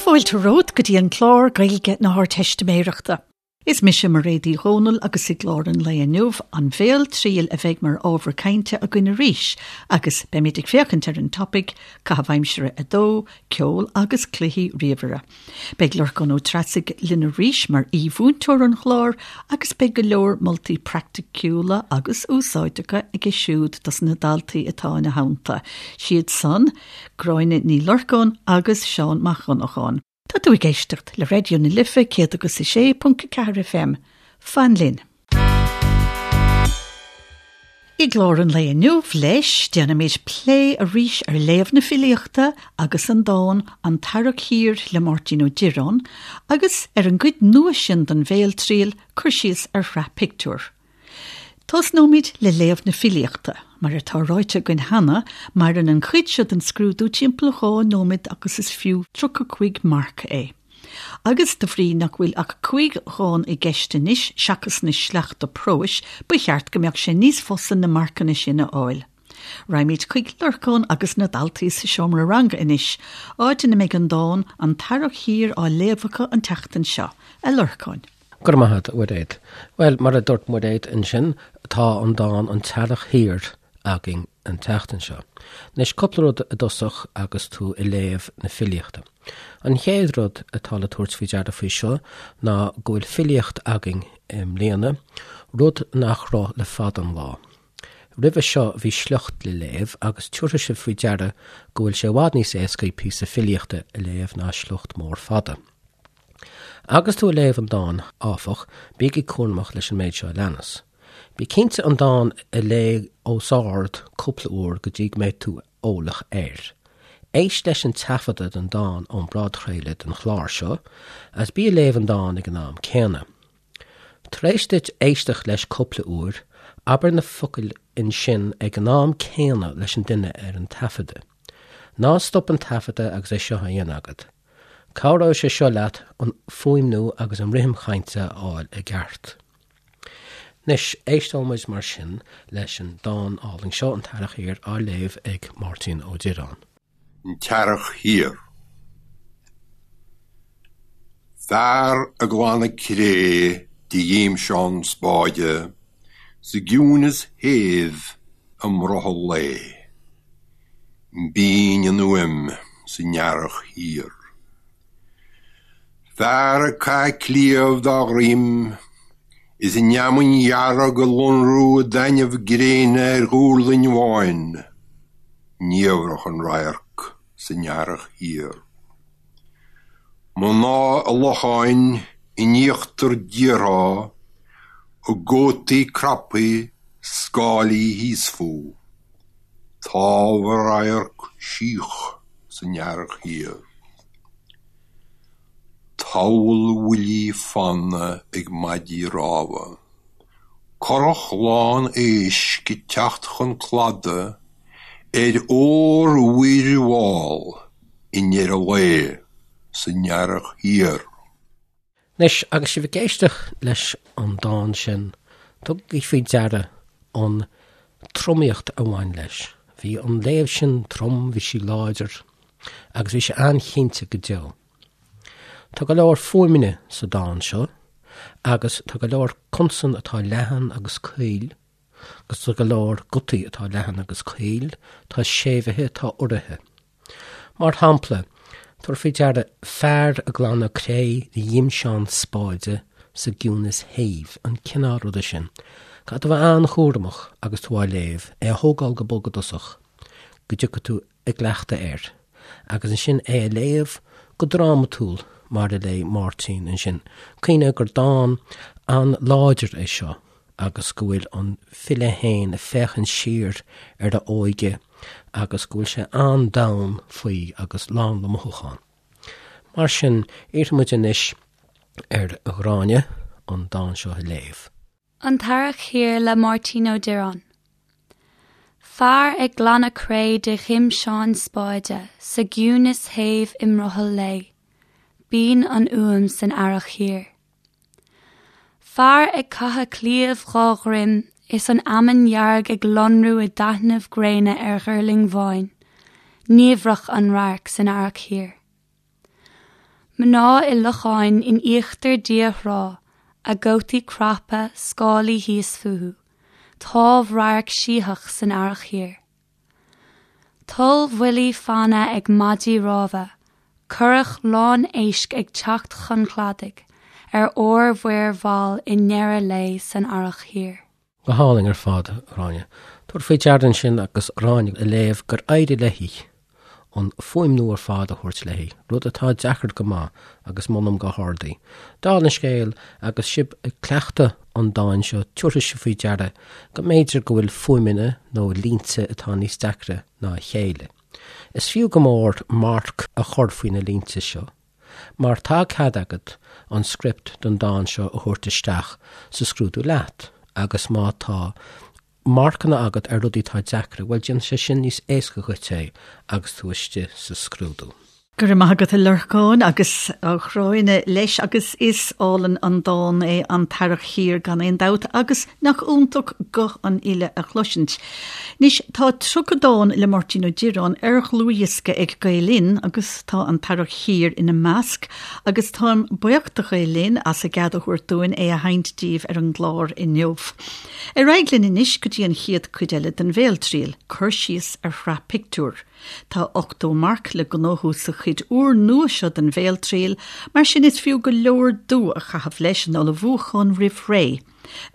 fáilte romhat go dtí an clár Gaeilge na hArdteistiméireachta. Is mise Mairéad Uí Dhomhnaill agus i gclár an lae inniu, an bhéaltriail a bheidh mar ábhar cainte againn arís agus beimid ag féachaint ar an topaic, Caitheamh Aimsire 2, Ceol agus Cluichí Ríomhaire. Beidh Lorcán Ó Treasaigh linn arís mar aoi-mhúinteoir an chláir agus beidh go leor moltaí praiticiúla agus úsáideacha aige siúd dos na daltaí atá ina theannta, siad san, Gráinne Ní Lorcáin agus Seán Mac Dhonnacháin. Tá tú ag éisteacht le Raidió na Life 106.4 FM. Fan linn! I gclár an lae inniu, leis, déanfaimid plé arís ar léamh na filíochta agus an dán An tEarrach Thiar le Máirtín Ó Direáin agus ar an gcuid nua sin den bhéaltriail, cur síos ar shraith pictiúr. Tosnóimid le léamh na filíochta. Mar atá ráite againn cheana, maireann an chuid seo den scrúdú timpeall 2 nóiméad agus is fiú 35 marc é. Agus de bhrí nach bhfuil ach 5 dhán i gceist anois seachas na sleachta próis, ba cheart go mbeadh sé níos fusa na marcanna sin a fháil. Raghaimid chuig Lorcán agus na daltaí sa seomra ranga anois, áit ina mbeidh an dán 'An tEarrach Thiar' á léamh acu an tseachtain seo. A Lorcáin. Go raibh maith agat, a Mhairéad. Bhuel, mar a dúirt Mairéad ansin, tá an dán 'An tEarrach Thiar' againn an tseachtain seo. Anois, cúpla rud i dtosach agus tú ag léamh na filíochta. An chéad rud atá le tabhairt faoi deara faoi seo ná go bhfuil filíocht againn i mbliana, rud nach raibh le fada an lá. Roimhe seo bhí sliocht le léamh agus tiúrfaidh sibh faoi deara go bhfuil sé i bhfad níos éascaí píosa filíochta a léamh ná sliocht mór fada. Agus tú ag léamh an dáin, áfach, bígí cúramach leis an méid seo a leanas. Bí cinnte an dán a léamh os ard cúpla uair go dtí go mbeidh tú eolach air. Éist leis an taifeadadh den dán ón bpodchraoladh den chlár seo agus bí ag léamh an dáin ag an am céanna. Tar éis duit éisteacht leis cúpla uair, abair na focail ansin ag an am céanna leis an duine ar an taifeadadh. Ná stop an taifeadadh agus é seo á dhéanamh agat. Cabhróidh sé seo leat an fuaimniú agus an rithim chainte a fháil i gceart. Anois, éisteoimid mar sin leis an dán álainn seo, An tEarrach Thiar, á léamh ag Máirtín Ó Direáin. An tEarrach Thiar. Fear ag glanadh cré de ghimseán spáide sa gciúineas shéimh i mbrothall lae. Binn an fhuaim san earrach thiar. Fear ag caitheamh cliabh dá dhroim is an fheamainn dhearg ag lonrú i dtaitneamh gréine ar dhuirling bháin, niamhrach an radharc san earrach thiar. Mná i locháin in íochtar díortha a gcótaí craptha scáilí thíos fúthu, támh a radharc síoch san earrach thiar. Tabhall bhuillí fanna ag maidí rámha, Curach lán éisc ag teacht chun cladaigh ar ór-mhuir mhall i ndeireadh lae san earrach thiar. Anois, agus sibh ag éisteacht leis an dán sin, tugaigí faoi deara an tromaíocht a bhain leis. Bhí an léamh sin trom, bhí sí láidir, agus bhí sé an-chinnte go deo. Tá go leor fuaimeanna sa dán seo, agus tá go leor consan atá leathan agus caol, agus tá go leor gutaí atá leathan agus caol, tá séimhithe, tá uraithe. Mar shampla, tabhair faoi deara fear ag glanadh cré de ghimseán spáide sa gciúnas shéimh, an cineál ruda sin. Caithfidh tú a bheith an-chúramach agus tú á léamh, é a thógáil go bog i dtosach, go dtiocfaidh tú i gcleachtadh air, agus ansin é a léamh go drámatúil mar a léigh Máirtín ansin. Cuimhnigh gur dán an-láidir é seo agus go bhfuil an file féin ag féachaint siar ar a óige agus go bhfuil sé an-domhain faoi agus lán le mothúchán. Mar sin, iarrfaidh muid anois ar Ghráinne an dán seo a léamh. An tEarrach Thiar le Máirtín Ó Direáin. Fear ag glanadh cré de ghimseán spáide sa gciúnas shéimh i mbrothall lae. Binn an fhuaim san earrach thiar. Fear ag caitheamh cliabh dhá dhroim is an fheamainn dhearg ag lonrú i dtaitneamh gréine ar ghuirling bháin, niamhrach an radharc san earrach thiar. Mná i locháin in íochtar dí-thrá, a gcótaí craptha, scálaí thíos fúthu, támhradharc sítheach san earrach thiar. Tollbhuillí fanna ag maidí rámha, curach lán éisc ag teacht chun cladaigh ar ármhuir mhall i ndeireadh lae san earrach thiar. Go hálainn ar fad, a Ghráinne. Tabhair faoi deara ansin agus Gráinne ag léamh gur éirigh léi an fuaimniú ar fad a thabhairt léi, rud atá deacair go maith agus molaim go hard í. Dála an scéil, agus sibh ag cleachtadh an dáin seo, tabharfaidh sibh faoi deara go mb'fhéidir go bhfuil fuaimeanna nó línte atá níos deacra ná a chéile. Is fiú go mór marc a chur faoi na línte seo. Mar tá cead agat an script don dán seo a thabhairt isteach sa scrúdú leat agus má tá marcanna agat ar rudaí atá deacra, bhuel déanfaidh sé sin níos éasca dhuit é agus tú istigh sa scrúdú. Go raibh maith agat a Lorcáin agus a Ghráinne leis agus is álainn an dán é An tEarrach Thiar gan aon dabht agus nach iontach guth an fhile a chloisint. Anois tá 30 dán le Máirtín Ó Direáin ar dhlúthdhiosca ag Gael Linn agus Tá An tEarrach Thiar ina measc agus táim buíoch do Ghael Linn as a gcead a thabhairt dúinn é a sheinnt daoibh ar an gclár inniu. Ar aghaidh linn anois go dtí an chéad cuid eile den Bhéaltriail, cur síos ar shraith pictiúr. Tá 80 marc le gnóthú sa chuid úrnua seo den Bhéaltriail, mar sin is fiú go leor dua a chaitheamh leis an ullmhúchán roimh ré.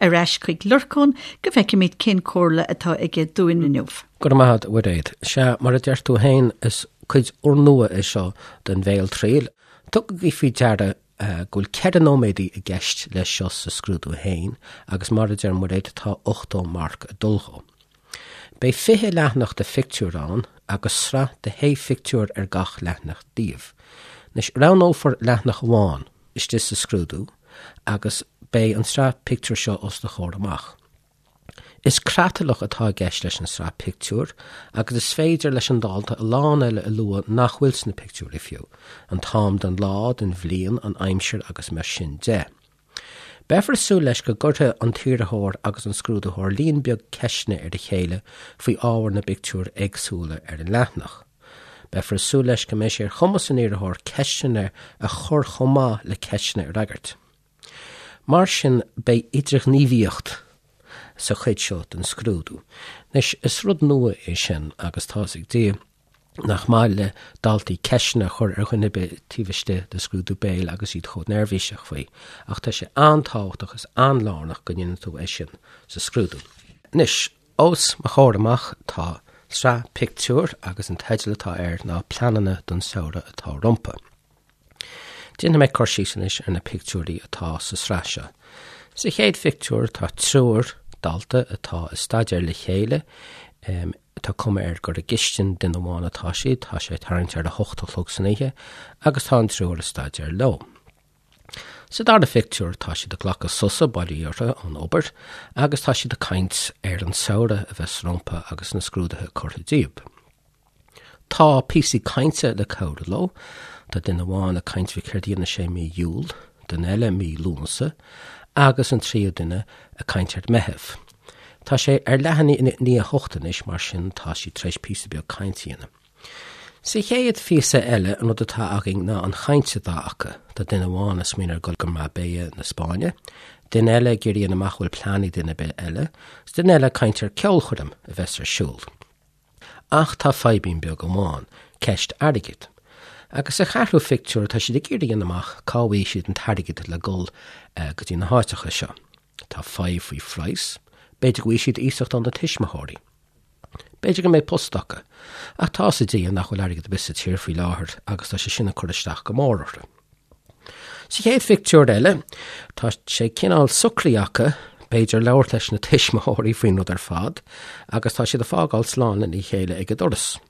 Ar ais chuig Lorcán go bhfeicfimid cén comhairle atá aige dúinn inniu. Go raibh maith agat, a Mhuiréad. Sea, mar a deir tú féin, is cuid úrnua é seo den Bhéaltriail. Tugaigí faoi deara go bhfuil 4 nóiméadaí i gceist leis seo sa scrúdú féin agus mar a deir Muiréad, tá 80 marc ag dul dhó. Beidh 20 leathanach de phictiúir ann agus sraith de shé phictiúr ar gach leathanach díobh. Anois, roghnófar leathanach amháin istigh sa scrúdú agus beidh an tsraith pictiúr seo os do chomhair amach. Is creatlach atá i gceist leis an sraith pictiúr agus is féidir leis an dalta a lán eile a lua nach bhfuil sna pictiúirí fiú, an t-am den lá, den bhliain, an aimsir agus mar sin de. Beifear ag súil leis go gcuirfidh an t-iarrthóir agus an scrúdaitheoir líon beag ceisteanna ar a chéile faoi ábhar na bpictiúr éagsúla ar an leathanach. Beifear ag súil leis go mbeidh sé ar chumas an iarrthóir ceisteanna a chur chomh maith le ceisteanna a fhreagairt. Mar sin beidh idirghníomhaíocht sa chuid seo den scrúdú. Anois, is rud nua é sin agus tá's ag Dia nach maith le daltaí ceisteanna a chur ar dhuine ar bith taobh istigh de scrúdú béil agus iad chomh neirbhíseach faoi, ach tá sé an-tábhachtach is an-lárnach go ndéanann tú é sin sa scrúdú. Anois, os mo chomhair amach tá sraith pictiúr agus an teideal atá air ná Pleananna don Samhradh atá Rompu. Déanfaidh mé cur síos anois ar na pictiúirí atá sa sraith seo. Sa chéad phictiúr tá triúr dalta atá ag staidéar le chéile. Tá cuma air gur i gcistin duine amháin atá siad, tá sé tarraingt ar a hocht a chlog san oíche agus tá an triúr ag staidéar leo. Sa dara phictiúr tá siad ag glacadh sosa, bail ó Dhia orthu, ón obair agus tá siad ag caint ar an samhradh a bheas rompu agus na scrúduithe curtha díobh. Tá píosaí cainte le cabhrú leo. Tá duine amháin ag caint faoi céard a dhéanfaidh sé mí Iúil, duine eile mí Lúnasa agus an tríú duine ag caint ar Meitheamh. Tá sé ar leath i ndiaidh a hocht anois, mar sin tá siad tar éis píosa beag cainte a dhéanamh. Sa chéad phíosa eile, an rud atá againn ná an chaint atá acu. Tá duine amháin ag smaoineamh ar dhul go Marbella na Spáinne, duine eile ag iarraidh a dhéanamh amach an bhfuil plean ag duine ar bith eile, is duine eile ag caint ar ceolchoirm a bheas ar siúl. Ach tá fadhbín beag amháin, ceist airgid. Agus sa cheathrú phictiúr tá siad ag iarraidh a dhéanamh amach cá bhfaighidh siad an t-airgead le dul go dtí na háiteacha seo. Tá fadhb faoi phraghas, b'fhéidir go bhfaighidh siad iasacht óna tuismitheoirí. B'fhéidir go mbeidh post acu. Ach tá 'fhios ag Dia nach bhfuil airgead ar bith sa tír faoi láthair agus tá sé sin ag cur isteach go mór orthu. Sa chéad phictiúr eile, tá sé cineál socraithe acu, b'fhéidir, labhairt leis na tuismitheoirí faoin rud ar fad agus tá siad ag fágáil slán lena chéile ag an doras.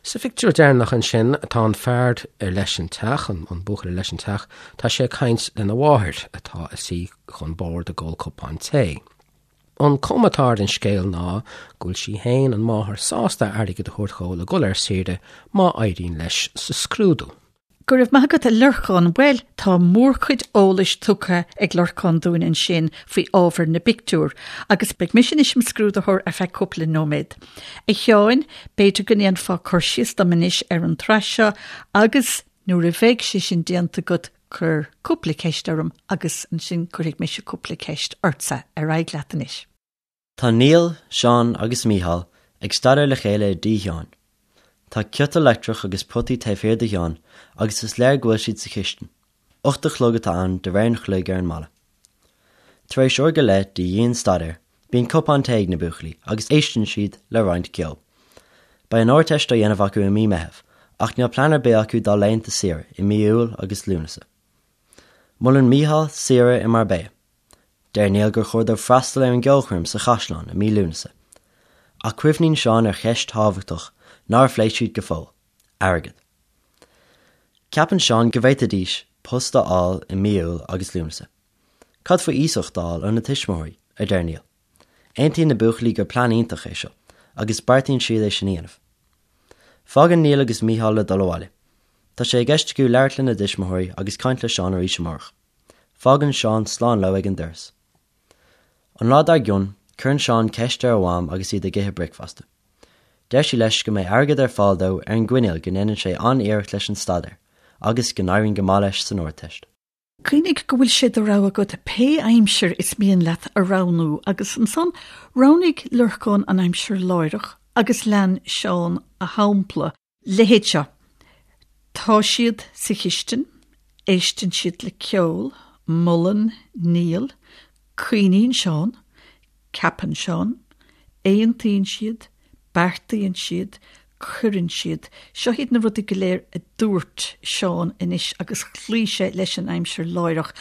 Sa phictiúr deireanach ansin, tá an fear ar leis an teach, an buachaill ar leis an teach, tá sé ag caint lena mháthair atá ina suí chun boird ag ól cupán tae. An cuma atá ar an scéal ná go bhfuil sí féin, an mháthair, sásta airgead a thabhairt dhó le dul ar saoire má éiríonn leis sa scrúdú. Go raibh maith agat a Lorcáin. Bhuel, tá mórchuid eolais tugtha ag Lorcán dúinn ansin faoi ábhar na bpictiúr, agus beidh mise anois im scrúdaitheoir ar feadh cúpla nóiméad. A Sheáin, b'fhéidir go ndéanfá cur síos dom anois ar an tsraith seo agus. Nuair a bheidh sé sin déanta agat, cuir cúpla ceist orm agus ansin cuirfidh mise cúpla ceist ortsa. Ar aghaidh leat anois. Tá Niall, Seán agus Mícheál ag staidéar le chéile i dtigh Sheáin. Tá ciotal leictreach agus potaí taobh thiar de Sheán agus is léir go bhfuil siad sa chistin. 8 a chlog atá ann de réir an chloig ar an mballa. Tar éis uair go leith de dhian-staidéar, bíonn cupán tae ag na buachaillí agus éisteann siad le roinnt ceoil. Beidh an Ardteist á dhéanamh acu i mí Meitheamh ach níl plean ar bith acu dá laethanta saoire i mí Iúil agus Lúnasa. Molann Mícheál saoire i Marbella. Deir Niall gur chóir dóibh freastal ar an gceolchoirm sa chaisleán i mí Lúnasa. Ach cuimhníonn Seán ar cheist thábhachtach nár phléigh siad go fóill, airgead. Ceapann Seán go bhféadfaidís post a fháil i mí Iúil agus Lúnasa. Cad faoi iasacht a fháil óna tuismitheoirí? a deir Niall. Aontaíonn na buachaillí gur plean iontach é seo agus beartaíonn siad é sin a dhéanamh. Fágann Niall agus Mícheál le dul abhaile. Tá sé i gceist acu labhairt lena dtuismitheoirí agus caint le Seán arís amárach. Fágann Seán slán leo ag an doras. An lá dár gcionn, cuireann Seán ceist ar a mham agus iad ag ithe bricfeasta. Deir sí leis go mbeidh airgead ar fáil dó ar an gcoinníoll go ndéanann sé an-iarracht leis an staidéar agus go n-éiríonn go maith leis san Ardteist. Cuimhnigh go bhfuil sé de rogha agat pé aimsir is mian leat a roghnú agus ansan roghnaigh Lorcán an aimsir láithreach agus lean Seán a shampla. Leithéid seo. Tá siad sa chistin, éisteann siad le ceol, molann Niall, cuimhníonn Seán, ceapann Seán, aontaíonn siad, beartaíonn siad, cuireann siad. Seo iad na rudaí go léir a dúirt Seán anois agus chloígh sé leis an aimsir láithreach.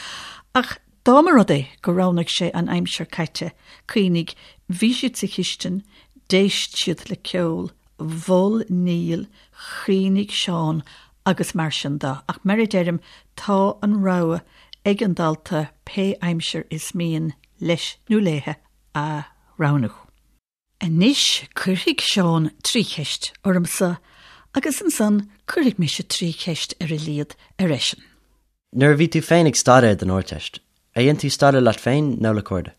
Ach dá mba rud é gur roghnaigh sé an aimsir caite, cuimhnigh, bhí siad sa chistin, d'éist siad le ceol, mhol Niall, chuimhnigh Seán agus mar sin de. Ach mar a deirim, tá an rogha ag an dalta pé aimsir is mian leis nó léithe a roghnú. Anois cuirfidh Seán trí cheist ormsa agus ansan cuirfidh mise trí cheist ar a laghad ar eisean. Nuair a bhí tú féin ag staidéar don Ardteist, ar dhein tú staidéar leat féin nó le cairde?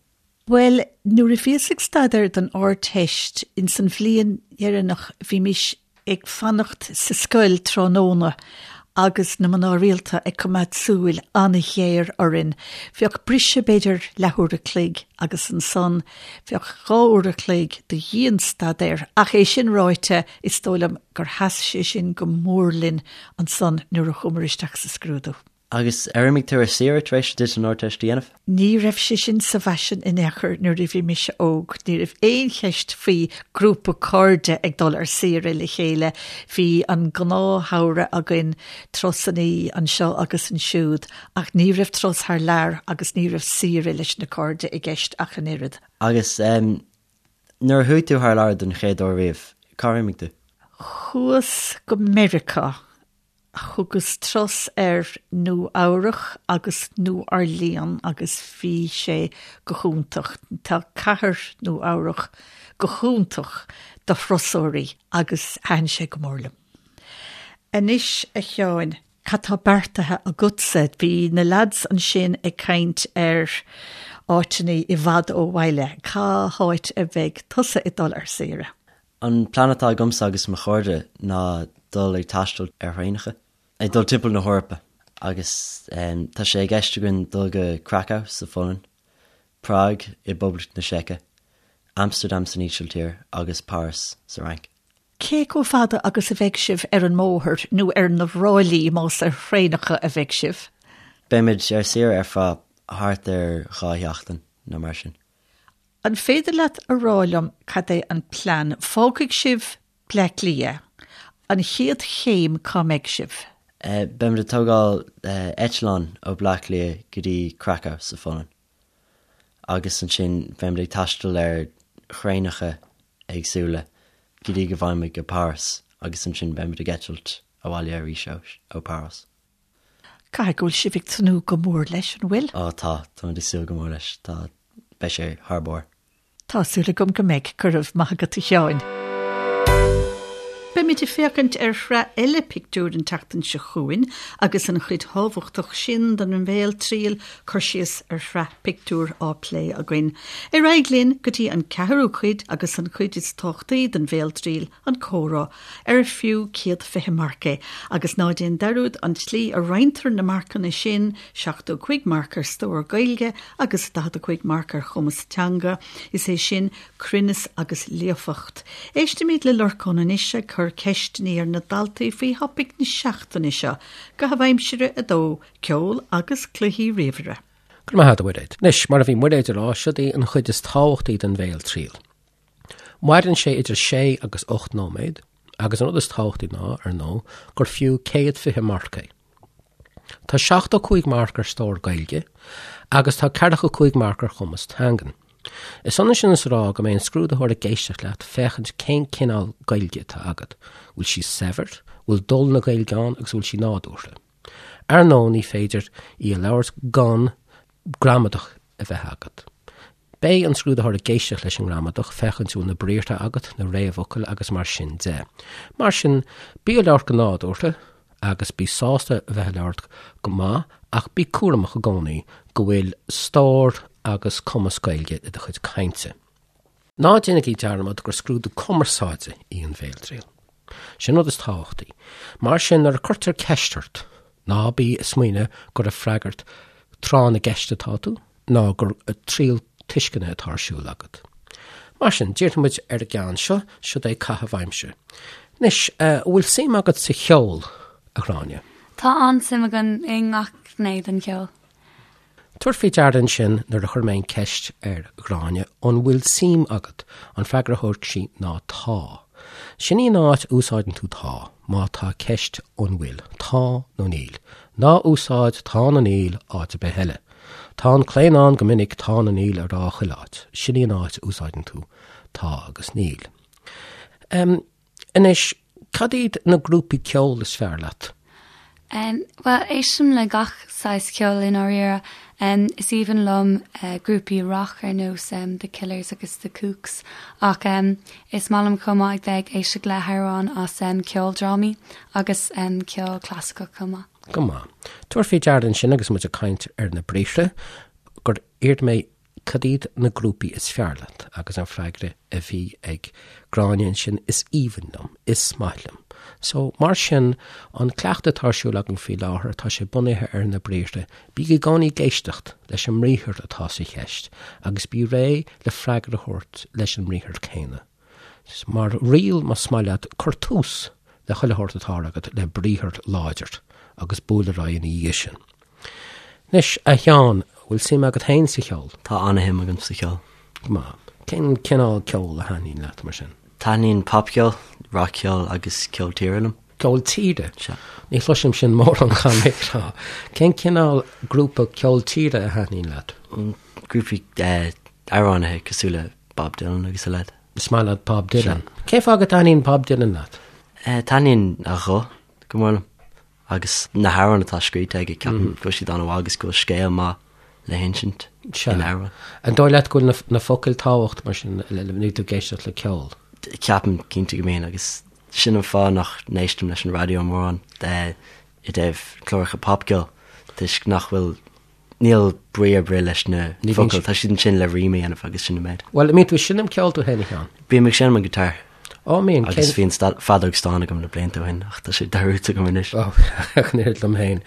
Bhuel, nuair a bhíos ag staidéar don Ardteist, ins an bhliain dheireanach, bhímis ag fanacht sa scoil tráthnóna agus na mná rialta ag coimeád súil an-ghéar orainn. Bheadh briseadh b'fhéidir leathuair a chloig agus ansan bheadh dhá uair a chloig de dhian-staidéar ach é sin ráite is dóigh liom gur sheas sé sin go mór linn ansan nuair a chuamar isteach sa scrúdú. Agus ar imigh tú ar saoire tar éis duit an Ardteist a dhéanamh? Ní raibh sé sin sa bhfaisean in aon chor nuair a bhí mise óg. Ní raibh aon cheist faoi grúpa cairde ag dul ar saoire le chéile. Bhí an gnáthshamhradh againn, turasannaí anseo agus ansiúd, ach ní raibh turas thar lear agus ní raibh saoire leis na cairde i gceist ach an oiread. Agus nuair a chuaigh tú thar lear don chéad uair riamh, cár imigh tú? Chuas go Meiriceá Thugas turas ar Nua Eabhrach agus Nua Orleans agus bhí sé go hiontach. Tá cathair Nua Eabhrach go hiontach do thurasóirí agus thaitin sé go mór liom. Anois a Sheáin, cad tá beartaithe agatsa? Bhí na lads ansin ag caint ar áiteanna i bhfad ó bhaile. Cá háit a bheidh tusa ag dul ar saoire? An plean atá agamsa agus mo chairde ná dul ag taisteal ar thraenacha, ag dul timpeall na hEorpa agus tá sé i gceist againn dul go Krakow sa Pholainn, Prág i bPoblacht na Seice, Amsterdam san Ísiltír agus Páras sa Fhrainc. Cé chomh fada agus a bheidh sibh ar an mbóthar nó ar na ráillí más ar thraenacha a bheidh sibh? Beimid ar saoire ar feadh thart ar dhá sheachtain nó mar sin. An féidir leat a rá liom cad é an plean? Fágfaidh sibh Bleá Cliath. An chéad chéim cá mbeidh sibh? Beimid ag tógáil eitleán ó Bleá Cliath go dtí Krakow sa Pholainn agus ansin beimid ag taisteal ar thraenacha éagsúla go dtí go bhfaighimid go Páras agus ansin beimid ag eitilt abhaile arís ó Páras. Caithfidh go bhfuil sibh ag tnúth go mór leis, an bhfuil? Ó tá, táimid ag súil go mór leis. Tá, beidh sé thar barr. Tá súil agam go mbeidh. Go raibh maith agat a Sheáin. Beimid ag féachaint ar shraith eile pictiúr an tseachtain seo chugainn agus an chuid thábhachtach sin den bhéaltriail, cur síos ar shraith pictiúr, á plé againn. Ar aghaidh linn go dtí an ceathrú cuid agus an chuid is tábhachtaí den bhéaltriail, an comhrá, ar fiú 120 marc é. Agus ná déan dearúd an tslí a roinntear na marcanna sin, 75 marc ar stór Gaeilge agus 45 marc ar chumas teanga, is é sin, cruinneas agus líofacht. Éistimid le Lorcán anois ag cur ceisteanna ar na daltaí faoi thopaic na seachtaine seo, Caitheamh Aimsire 2, Ceol agus Cluichí Ríomhaire. Go raibh maith agat, a Mhuiréad. Anois, mar a bhí Muiréad ag rá, siod í an chuid is tábhachtaí den bhéaltriail. Maireann sé idir sé agus 8 nóiméad agus an rud is tábhachtaí ná, ar ndóigh, gur fiú 120 marc é. Tá 75 marc ar stór Gaeilge agus tá 45 marc ar chumas teangan. Is ionann sin is a rá go mbeidh an scrúdaitheoir ag éisteacht leat féachaint cén cineál Gaeilge atá agat, bhfuil sí saibhir, bhfuil dul na Gaeilge ann agus bhfuil sí nádúrtha. Ar ndóigh ní féidir í a labhairt gan gramadach a bheith agat. Beidh an scrúdaitheoir ag éisteacht leis an ngramadach, féachaint an bhfuil na briathra agat, na réamhfhocail agus mar sin de. Mar sin, bí ag labhairt go nádúrtha agus bí sásta a bheith ag labhairt go maith ach bí cúramach i gcónaí go bhfuil stór agus cumas Gaeilge i do chuid cainte. Ná déanaigí dearmad gur scrúdú cumarsáide í an bhéaltriail. Sin an rud is tábhachtaí. Mar sin, nuair a cuirtear ceist ort, ná bí ag smaoineamh gur ag freagairt tráth na gceist atá tú, ná gur triail tuisceana atá ar siúl agat. Mar sin, díreoidh muid ar an gceann seo, siod é caitheamh aimsire. Anois, an bhfuil suim agat sa cheol, a Ghráinne? Tá an-suim agam i ngach gné den cheol. Tabhair faoi deara ansin nuair a chuir mé an ceist ar Ghráinne an bhfuil suim agat, an freagra a thug sí ná tá. Sin í an áit a úsáideann tú tá, má tá ceist an bhfuil, tá nó níl. Ná úsáid tá nó níl áit ar bith eile. Tá an claonadh ann go minic tá nó níl a rá chuile áit. Sin í an áit a úsáideann tú tá agus níl. Anois, cad iad na grúpaí ceoil is fearr leat? Bhuel, éistim le gach saghas ceoil i ndáiríre. Is aoibhinn liom grúpaí rock ar nós The Killers agus The Kooks ach is maith liom chomh maith ag bheith ag éisteacht le hamhráin as ceoldrámaí agus ceol clasaiceach chomh maith. Go maith. Tabhair faoi deara ansin agus muid ag caint ar na briathra gur iarr mé Cad iad na grúpaí is fearr leat? Agus an freagra a bhí ag Gráinne ansin, is aoibhinn liom, is maith liom. So, mar sin, an cleachtadh atá ar siúl againn faoi láthair, tá sé bunaithe ar na briathra. Bí i gcónaí ag éisteacht leis an mbriathar atá sa cheist agus bí réidh le freagra a thabhairt leis an mbriathar céanna. Mar riail, más maith leat, cuir tús le chuile shórt atá agat le briathar láidir agus buail ar aghaidh ina dhiaidh sin. Anois, a Sheáin, bhfuil suim agat féin sa cheol? Tá an-shuim agam sa cheol. Go maith. Cén cineál ceoil a thaitníonn leat, mar sin? Taitníonn popcheol, rac-cheol agus ceol tíre liom. Ceol tíre? Sea. Ní chloisim sin mórán, caithfidh mé a rá. Cén cineál grúpa ceol tíre a thaitníonn leat? Grúpaí amhránaithe cosúil le Bob Dylan agus a leithéid. Is maith leat Bob Dylan. Cén fáth go dtaitníonn Bob Dylan leat? Taitníonn a ghuth go mór liom. Agus na hamhráin atá scríte aige, ceapaim go bhfuil siad an-mhaith agus go bhfuil scéal maith le hinsint in amhrán. An dóigh leat go bhfuil na focail tábhachtach mar sin nuair tú ag éisteacht le ceol? Ceapaim cinnte go mbíonn agus sin an fáth nach n-éistim leis an raidió mórán i dtaobh cláracha popcheoil toisc nach bhfuil Níl brí ar bith leis na focail, tá siad ansin le rím a dhéanamh agus sin an méid. Bhuel, an mbíonn tú ag seinm ceoil tú féin, a Sheáin? Bím ag seinm an guitar. Ó, mbíonn. Agus bhí an feadóg stáin agam na blianta ó shin ach tá sé dearúdta agam anois. Ó, ach an oiread liom féin.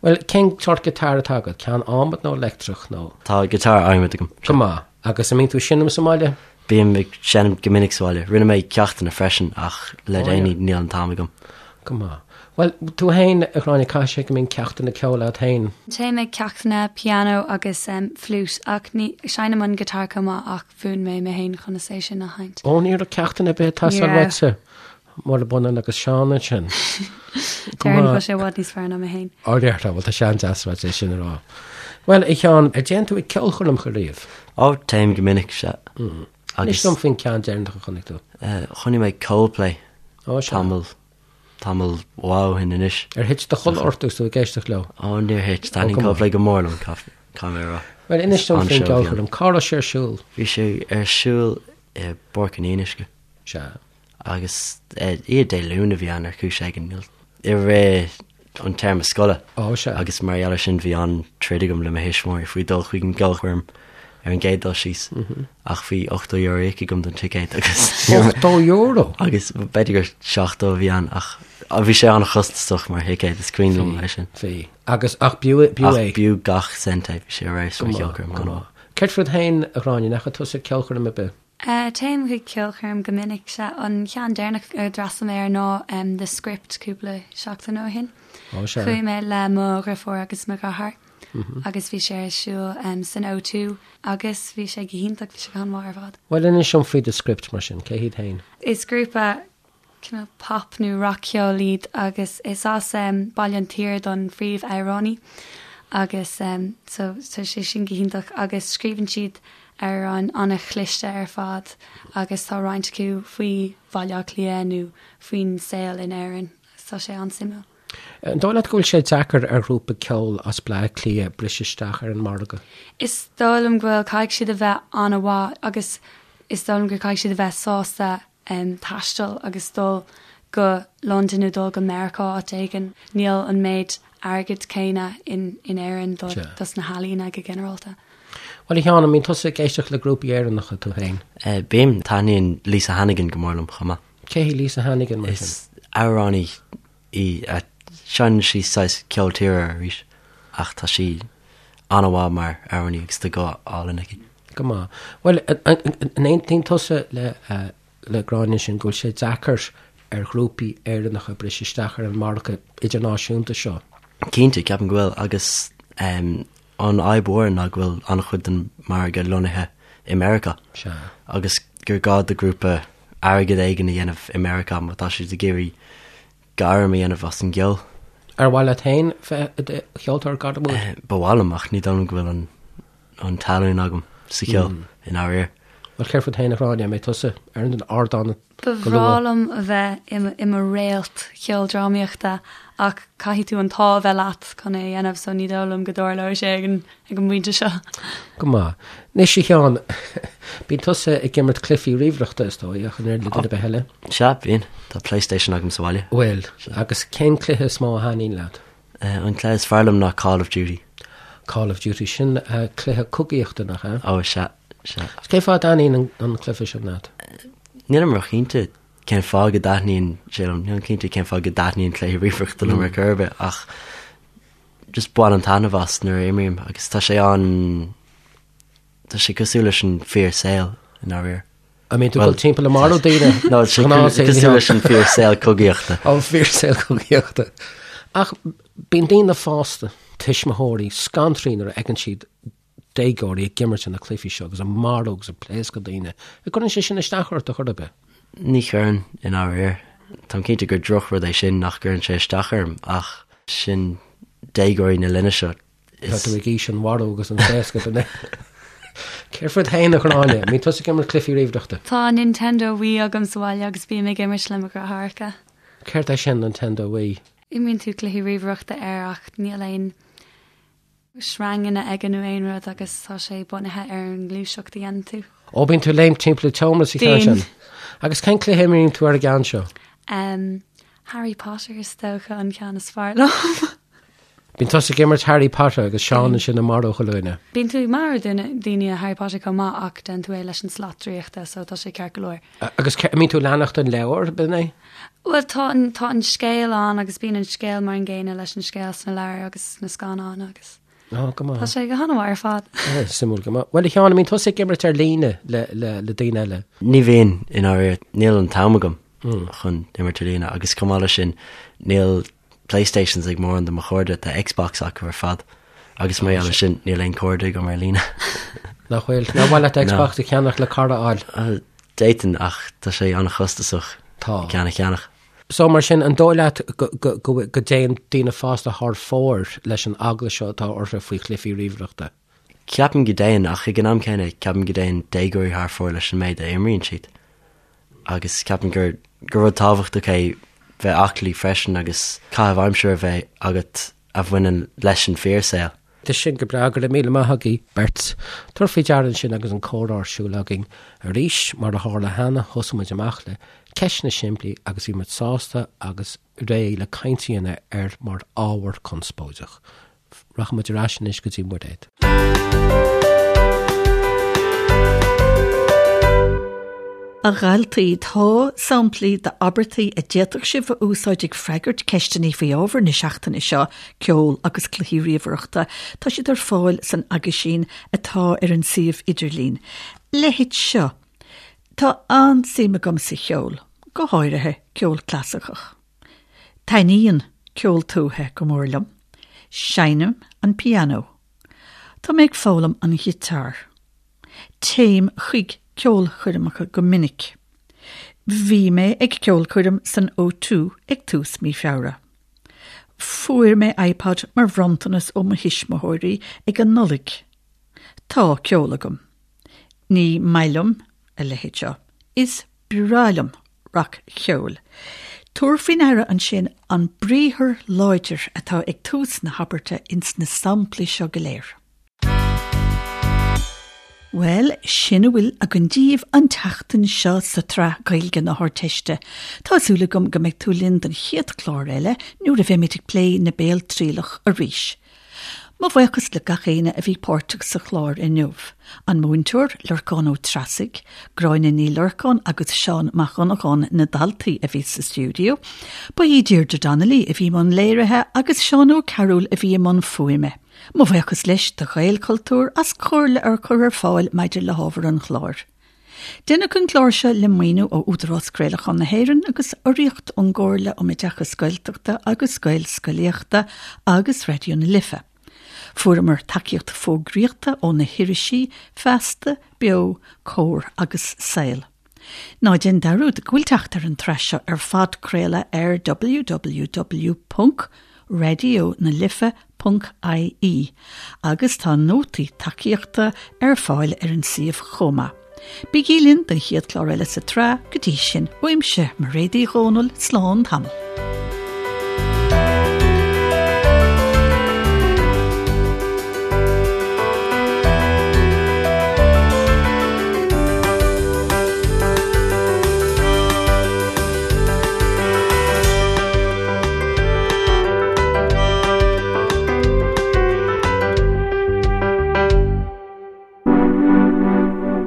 Bhuel, cén sórt guitar atá agat? Ceann adhmaid nó leictreach nó? Tá guitar adhmaid agam. Go maith. Agus an mbíonn tú ag seinm sa mbaile? Bím ag seinm go minic sa bhaile. Rinne mé ceachtanna freisin ach le déanaí níl an t-am agam. Go maith. Bhuel, tú féin, a Ghráinne, caithfidh sé go mbíonn ceachtanna ceoil agat féin? Téim ag ceachtanna pianó agus fliúit ach ní, seinnim an guitar chomh maith ach mhúin mé mé féin conas é sin a sheinnt. Ó, ní raibh ceachtanna ar bith ag teastáil uaitse. Murab ionann agus Seán ansin. Déarfainn go bhfuil sé i bhfad níos fearr ná mé féin. Ó, déarfá, bhuel tá sé an-deas uait é sin a rá. Bhuel, a Sheáin, ar dtéann tú ag ceolchoirmeacha riamh? Ó, téim go minic, sea. Inis dom faoin ceann deireanach a chonaic tú. Chonaic mé Coldplay Ó, sea. tamall, tamall mhaith ó shin anois. Ar thit do chodladh ort agus tú ag éisteacht leo? Ó, níor thit. Taitníonn Coldplay go mór liom, caithfidh mé a rá. Bhuel, inis dom faoin gceolchoirm. Cá raibh sé ar siúl? Bhí sé ar siúl i bPáirc an Fhionnuisce. Sea. Agus oíche Dé Luain a bhí ann ar chúis éigin, i rith an téarma scoile. Ó, sea. Agus mar gheall air sin bhí an-troid agam le mo thuismitheoirí faoi dul chuig an gceolchoirm ar an gcéad dul síos. Ach bhí €80 íoctha agam don ticéad agus. €80? Agus b'fhéidir gur 70 a bhí ann ach bhí sé an-chostasach mar thicéad, is cuimhin liom é sin. Bhí. Agus ach b'fhiú é. Ach b'fhiú gach cent é, bhí sé ar fheabhas mar cheolchoirm. Go maith. Céard fút féin, a Ghráinne, an ndeachaigh tusa ag ceolchoirm ar bith? Téim chuig ceolchoirm go minic. Sea, an ceann deireanach a d'fhreastail mé air ná The Script cúpla seachtain ó shin. Ó sea. Chuaigh mé le mo dheirfiúr agus mo dheartháir agus bhí sé ar siúl san O2 agus bhí sé go hiontach, bhí sé go han-mhaith ar fad. Bhuel, inis dom faoi The Script mar sin, cé hiad féin? Is grúpa cineál pop nó rac-cheol iad agus is as Baile an tSaoir don phríomh-amhránaí agus so tá sé sin go hiontach agus scríobhann siad amhráin an-chliste ar fad agus tá roinnt acu faoi Bhaile Átha Cliath nó faoin saol in Éirinn agus tá sé an-suimiúil. An dóigh leat go bhfuil sé deacair ar ghrúpa ceoil as Bleá Cliath briseadh isteach ar an margadh? Is dóigh liom go bhfuil, caithfidh siad a bheith an-mhaith agus is dóigh liom gur caithfidh siad a bheith sásta taisteal agus dul go Londain nó dul go Meiriceá áit éigin. Níl an méid airgid céanna in Éirinn dos na healaíona go ginearálta. Bhuel, a Sheáin, an mbíonn tusa ag éisteacht le grúpaí Éireannacha tú féin? Bím. Taitníonn Lisa Hannigan go mór liom chomh maith. Cé hí Lisa Hannigan mar sin? Is amhránaí í. Seinneann sí saghas ceol tíre arís ach tá sí an-mhaith mar amhránaí agus tá guth álainn aici. Go maith. Bhuel, an aontaíonn tusa le le Gráinne ansin go bhfuil sé deacair ar ghrúpaí Éireannacha briseadh isteach ar an margadh idirnáisiúnta seo? Cinnte, ceapaim go bhfuil agus an fhadhb mhór ná go bhfuil an-chuid den margadh lonnaithe i Meiriceá. Sea. Agus gur gá do ghrúpa airgead éigin a dhéanamh i Meiriceá má tá siad ag iarraidh gairm a dhéanamh as an gceol. Ar mhaith leat féin bheith i do cheoltóir gairmiúil? Ba mhaith liom ach ní dóigh liom go bhfuil an an talún agam sa cheol i ndáiríre. Bhuel, céard fút féin, a Ghráinne, an mbeidh tusa ar an ardán Ba go bhreá luath? liom a bheith i mo réalt cheoldrámaíochta ach caithfidh tú an t-ádh a bheith leat chun é a dhéanamh so ní dóigh liom go dtarlóidh sé ag an ag an bpointe seo. Go maith. Anois, a Sheáin, bíonn tusa ag imirt cluichí ríomhaireachta, is dóigh, ach an oiread le duine ar bith eile. Sea, bíonn. Tá PlayStation agam sa bhaile. Bhfuil. Agus cén cluiche is mó a thaitníonn leat? An cluiche is fearr liom ná Call of Duty. Call of Duty, sin cluiche cogaíochta, nach ea? Ó, sea, sea. Is cén fáth a dtaitníonn an cluiche sin leat? Nílim róchinnte cén fáth go dtaitníonn sé liom. Nílim cinnte cén fáth go dtaitníonn cluichí ríomhaireachta liom ar chor ar bith, ach just bainim taitneamh as nuair a imrím agus tá sé an, tá sé cosúil leis an fíor saol i ndáiríre. An mbíonn tú ag dul timpeall ag marú daoine? No, tá sé cosúil leis an fíor saol cogaíochta. An fíor saol cogaíochta. Ach bíonn daoine fásta, tuismitheoirí, scanraithe nuair a fheiceann siad déagóirí ag imirt na cluichí seo agus ag marú agus ag pléascadh daoine. An gcuireann sé sin isteach ort ar chor ar bith? Ní chuireann, i ndáiríre. Táim cinnte gur drochrud é sin nach gcuireann sé isteach orm ach sin déagóirí na linne seo. Tá tú ag aois an mharú agus an phléascadh, an ea? Céard fút féin, a Ghráinne? An mbíonn tusa ag imirt cluichí ríomhaireachta? Tá Nintendo Wii agam sa bhaile agus bím ag imirt le mo dheartháireacha. Céard é sin, Nintendo Wii? Imríonn tú cluichí ríomhaireachta air ach níl aon sreanganna aige nó aon rud agus tá sé bunaithe ar an ngluaiseacht a dhéanann tú. Ó, bíonn tú ag léimt timpeall an tseomra sa cheann Bíonn. sin. Agus cén cluiche a imríonn tú ar an gceann seo? Um, Harry Potter is dócha an ceann is fearr liom. Bíonn tusa ag imirt Harry Potter agus Seán ansin ag marú chuile dhuine. Bíonn tú ag marú daoine i Harry Potter chomh maith ach déanann tú é leis an slat draíochta so tá sé ceart go leor. Agus an mbíonn tú ag leanacht an leabhar, b'in é? Bhuel tá an tá an scéal ann agus bíonn an scéal mar an gcéanna leis an scéal sna leabhair agus sna scannáin agus Ó, go maith. tá sé go han-mhaith ar fad. Suimiúil go maith. Bhuel a Sheáin, an mbíonn tusa ag imirt ar líne le le le daoine eile? Ní bhíonn, i ndáiríre. Níl an t-am agam chun imirt ar líne agus chomh maith leis sin níl Playstations ag mórán de mo chairde, tá Xbox acu ar fad agus mar gheall air sin níl aon chairde agam ar líne. Nach bhfuil? Nár mhaith leat Xbox a cheannach le cara a fháil? D'fhéadfainn ach tá sé an-chostasach Tá. ceann a cheannach. So mar sin, an dóigh leat go dtéann daoine fásta thar fóir leis an eagla seo atá orthu faoi chluichí ríomhaireachta? Ceapaim go dtéann ach ag an am céanna ceapaim go dtéann déagóirí thar fóir leis an méid a imríonn siad. Agus ceapaim gur gur rud tábhachtach é bheith aclaí freisin agus caitheamh aimsire a bheith agat a bhaineann leis an fíorshaol. Tá sin go breá, go raibh míle maith agaibh beirt. Tabhair faoi deara ansin agus an comhrá ar siúl againn arís, mar a tharla cheana, thosaigh muid amach le ceisteanna simplí agus bhí muid sásta agus réidh le caint a dhéanamh air mar ábhar conspóideach. Rachaidh muid ar ais anois go dtí Muiréad. A dhaltaí, tá samplaí d'abairtí a d'fhéadfadh sibh a úsáid ag freagairt ceisteanna faoi ábhar na seachtaine seo, ceol agus cluichí ríomhaireachta. Tá siad ar fáil san aguisín atá ar an suíomh idirlín. Leithéid seo. Tá an-suim agam sa cheol, go háirithe ceol clasaiceach. Taitníonn ceol tuaithe go mór liom. Seinnim an pianó. Tá mé ag foghlaim an ghiotár. Téim chuig ceolchoirmeacha go minic. Bhí mé ag ceolchoirm san O2 ag tús mí Feabhra. Fuair mé iPod mar bhronntanas ó mo thuismitheoirí ag an Nollaig. Tá ceol agam. Ní maith liom a leithéid seo. Is breá liom rac-cheol. Tabhair faoi ndeara ansin an briathar láidir atá ag tús na habairte ins na samplaí seo go léir. Bhuel, sin a bhfuil againn daoibh an tseachtain seo sa tsraith Gaeilge na hArdteiste. Tá súil agam go mbeidh tú linn don chéad chlár eile nuair a bheimid ag plé na Béaltrialach arís. Mo bhuíochas le gach éinne a bhí páirteach sa chlár inniu, an múinteoir, Lorcán Ó Treasaigh, Gráinne Ní Lorcáin agus Seán Mac Dhonnagáin na daltaí a bhí sa stiúideo. Ba í Deirdre Donnelly a bhí i mbun léirithe agus Seán Ó Cearúil a bhí i mbun fuaime. Mo bhuíochas leis do Ghaelchultúr as comhairle a chur ar fáil maidir le hábhar an chláir. Deineadh an clár seo le maoiniú ó Údarás Craolacháin na hÉireann agus urraíocht ón gComhairle um Oideachas Gaeltachta agus Gaelscolaíochta agus Raidió na Life. Fuaireamar tacaíocht fógraíochta ó na hirisí Feasta, Beo, Comhar agus Saol. Ná déan dearúd go bhfuil teacht ar an tsraith seo ar phodchraoladh ar www. radionalife.ie agus tá nótaí tacaíochta ar fáil ar an suíomh chomh maith. Bígí linn don chéad chlár eile sa tsraith, go dtí sin, uaimse, Mairéad Uí Dhomhnaill, slán tamall.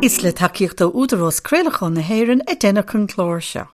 Is le tacaíocht ó Údarás Craolacháin na hÉireann a deineadh an clár seo.